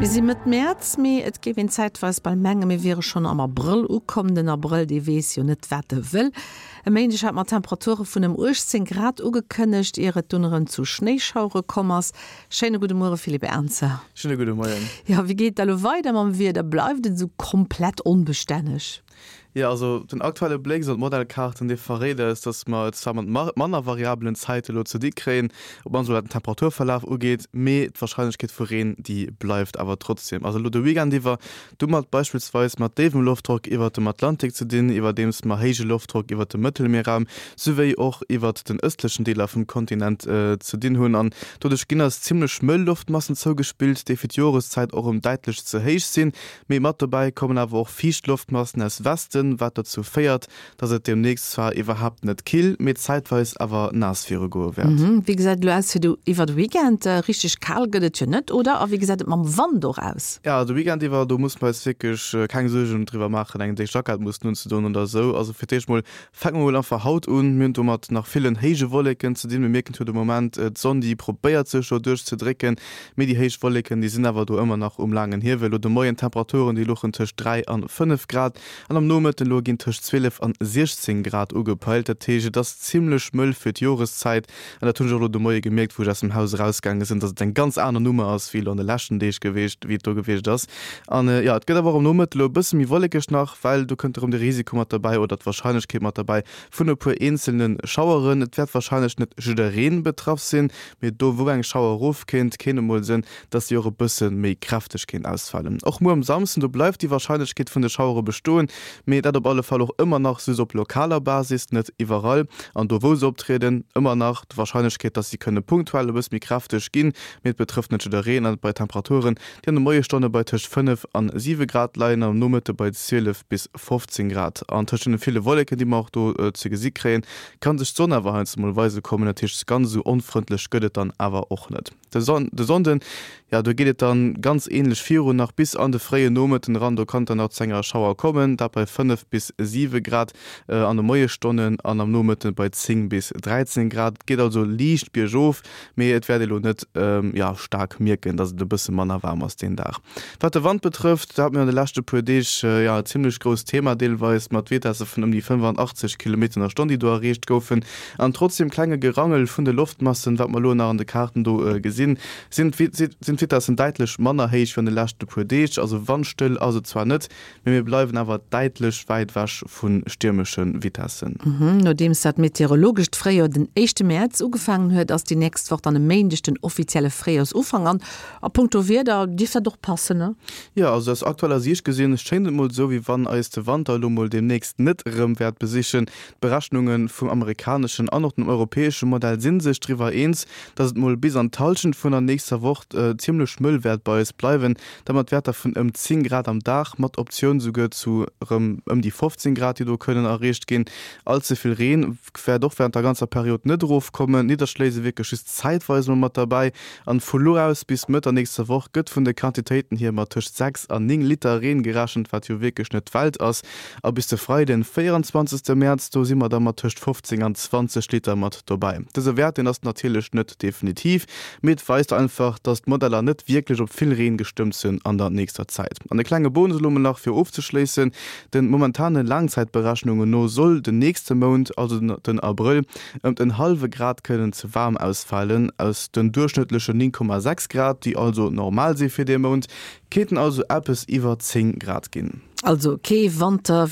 Mir si Mëtt Mäerz, mee et géif een zäitweis bal menge mir wiere schonn am Abrëll ukomm. Den Abrëll, dee weess jo net, wat e wëll. E Méindeg hat mer Temperature vun ëm 18 Grad ugekënnegt, ier et dunn erëm zu Schnéischauere komm ass. Schéine gudde Muere Philippe Ernzer. Schéine gudde Moien. Jo, wéi geet et da lo weider mam Wieder? Bleift et esou komplett onbestänneg? Jo, also den aktuelle Bléck op d'Modellkaarten, dee verréit eis, dass mer et zwar mat manner variabelen Zäite lo ze di kréien, op d'mannst wat den Temperaturverlaf ugeet, mee d'Warscheinlechkeet vu Reen, déi bleift awer trotzdeem. Also elo de Weekend iwwer domat beispillsweis mat déiwem Loftdrock iwwert dem Atlantik ze dinn, iwwerdeems mer héije Loftdrock iwwert dem Mëttelmierraum souwéi och iwwert den ëstlechen Deeler vum Kontinent ze dinn hunn. An doduerch ginn eis zimmlech mëll Loftmassen zougespillt, déi fir d'Joreszäit och erëm däitlech ze héich sinn. Mee mat dobäi kommen awer och fiicht Loftmassen aus Westen, wat dozou féiert, dass et demnächst zwar iwwerhaapt net kill, mee zäitweis awer naass virugoe wäert. Wéi gesäit et elo aus fir de iwwer de Weekend? Richteg kal gëtt et jo net, oder? A wéi gesäit et mam Wand och aus? Jo, de Weekend iwwer, do musse mer eis wierklech keng Suergen driwwer maachen, eng déck Jackett mussen unzedoen oder esou. Also fir d'éischt mol Fänke mer mol einfach haut un. Mir hunn do mat nach villen héije Wolleken ze dinn. Mir mierken jo de Moment, d'Sonn déi probéiert sech do duerchzedrécken, mee déi héich Wolleken déi sinn awer do ëmmer nach um laangen Hiewel. Elo de Moien Temperaturen déi luchen tëscht 3 an 5 Grad an am Nomëtten elo ginn tëscht 12 an 16 Grad ugepeilt. Dat heescht et ass zimmlech mëll fir d'Joreszäit an dat hunn ech och elo de Moie gemierkt wou ech aus dem Haus erausgaange sinn, dass et eng ganz aner Nummer ass wéi elo an de leschten Deeg geweecht wéi et do gewiescht ass. An jo, et gëtt awer och am Nomëtte elo e bësse méi wollekeg nach, well do kënnt erëm de Risiko mat derbäi oder d'Warscheinlechkeet mat derbäi vun e puer eenzelne Schaueren. Et wäert warscheinlech net jidderee betraff sinn, mee do wou eng Schauer erofkéint, kéint et mol sinn, dass déi och e bësse méi kräfteg kéint ausfalen. Och muer um Samsden, do bleift déi Warscheinlechkeet vun de Schauere bestoen, mee dat op alle Fall och ëmmer nach just op lokaler Basis, net iwwerall. An do wou se optrieden, ëmmer nach d'Warscheinlechkeet, dass si kënne punktuell e bësse méi kräfteg ginn, mee et betrëfft net jiddereen an bei Temperaturen, déi an de Moiesstonne bei tëscht 5 an 7 Grad leien an am Nomëtte bei 12 bis 15 Grad. An tëscht deene ville Wolleken, déi mer och do ze gesi kréien, ka sech d'Sonn awer heiansdo mol weise kommen. Dat heescht, ganz esou onfrëndlech gëtt et dann awer och net. De Sonnden, jo, do geet et dann ganz änlech virun, nach bis an de fréie Nomëtten eran. Do kann et dann nach zu enger Schauer kommen, dat bei 5 bis 7 Grad an de Moiesstonnen an am Nomëtte bei 10 bis 13 Grad. Et geet also liicht biergof. Mee et wäert ee lo net, jo, staark mierken, dass et e bësse manner waarm ass deen Dag. Wat de Wand betrëfft, do hate mir an de leschte puer Deeg, jo, e zimmlech grousst Thema deelweis mat Vitesse vun ëm déi 85 Kilometer an der Stonn, déi do erreecht goufen. An trotz deem klenge Gerangel vun de Loftmassen, wat mer elo nach an de Kaarten do gesinn, sinn d'Vitessen däitlech manner héich wéi an de leschte puer Deeg. Also wandstëll ass et zwar net, Mee mir bleiwen awer däitlech wäit ewech vu stiermesche Vitessen. Nodeems dat meteorologescht Fréijoer den éischte Mäerz ugefaangen huet, ass déi nächst Woch dann e Méindeg den offizielle Fréijoersufank. An a punkto Wieder dierft dat och passen, ne? Jo, also aus aktueller Siicht gesinn schéngt et mol esou, wéi wann eis de Wanter elo mol deemnächst net erëm wäert besichen. D'Berechnunge vum amerikaneschen an och dem europäesche Modell si sech driwwer eens, dass et mol bis an d'Hallschent vun der nächster Woch zimmlech mëll wäert bei eis bleiwen. Da mat Wäerter vun ëm 10 Grad am Dag, mat Optioun souguer zu erëm ëm déi 15 Grad, déi do kënnen erreecht ginn. All ze vill Reen wäert och wärend der ganzer Period net erofkommen, Nidderschléi si wierklech just zäitweis mol mat derbäi. An vu lo aus bis Mëtt der nächster Woch gëtt vun de Quantitéiten hier mat tëscht 6 an 9 Liter Reen gerechent, wat jo wierklech net d'Welt ass. A bis de Freiden, 24 Mäerz, do si mer da mat tëscht 15 an 20 Liter mat dobäi. Dëse Wäert, deen ass natierlech net definitiv, mee et weist einfach, dass d'Modeller net wierklech op vill Reen gestëmmt sinn an der nächster Zäit. An e klenge Bonus elo mol nach fir ofzeschléissen, De momentane Laangzäitberechnungen no soll den nächste Mount, also den Abrëll, ëmt en hallwe Grad kënnen ze waarm ausfalen. Aus den duerchschnëttlechen 9,6 Grad, déi also normal si fir dee Mount, kéinten also eppes iwwer 10 Grad ginn. Also kee Wanterwieder.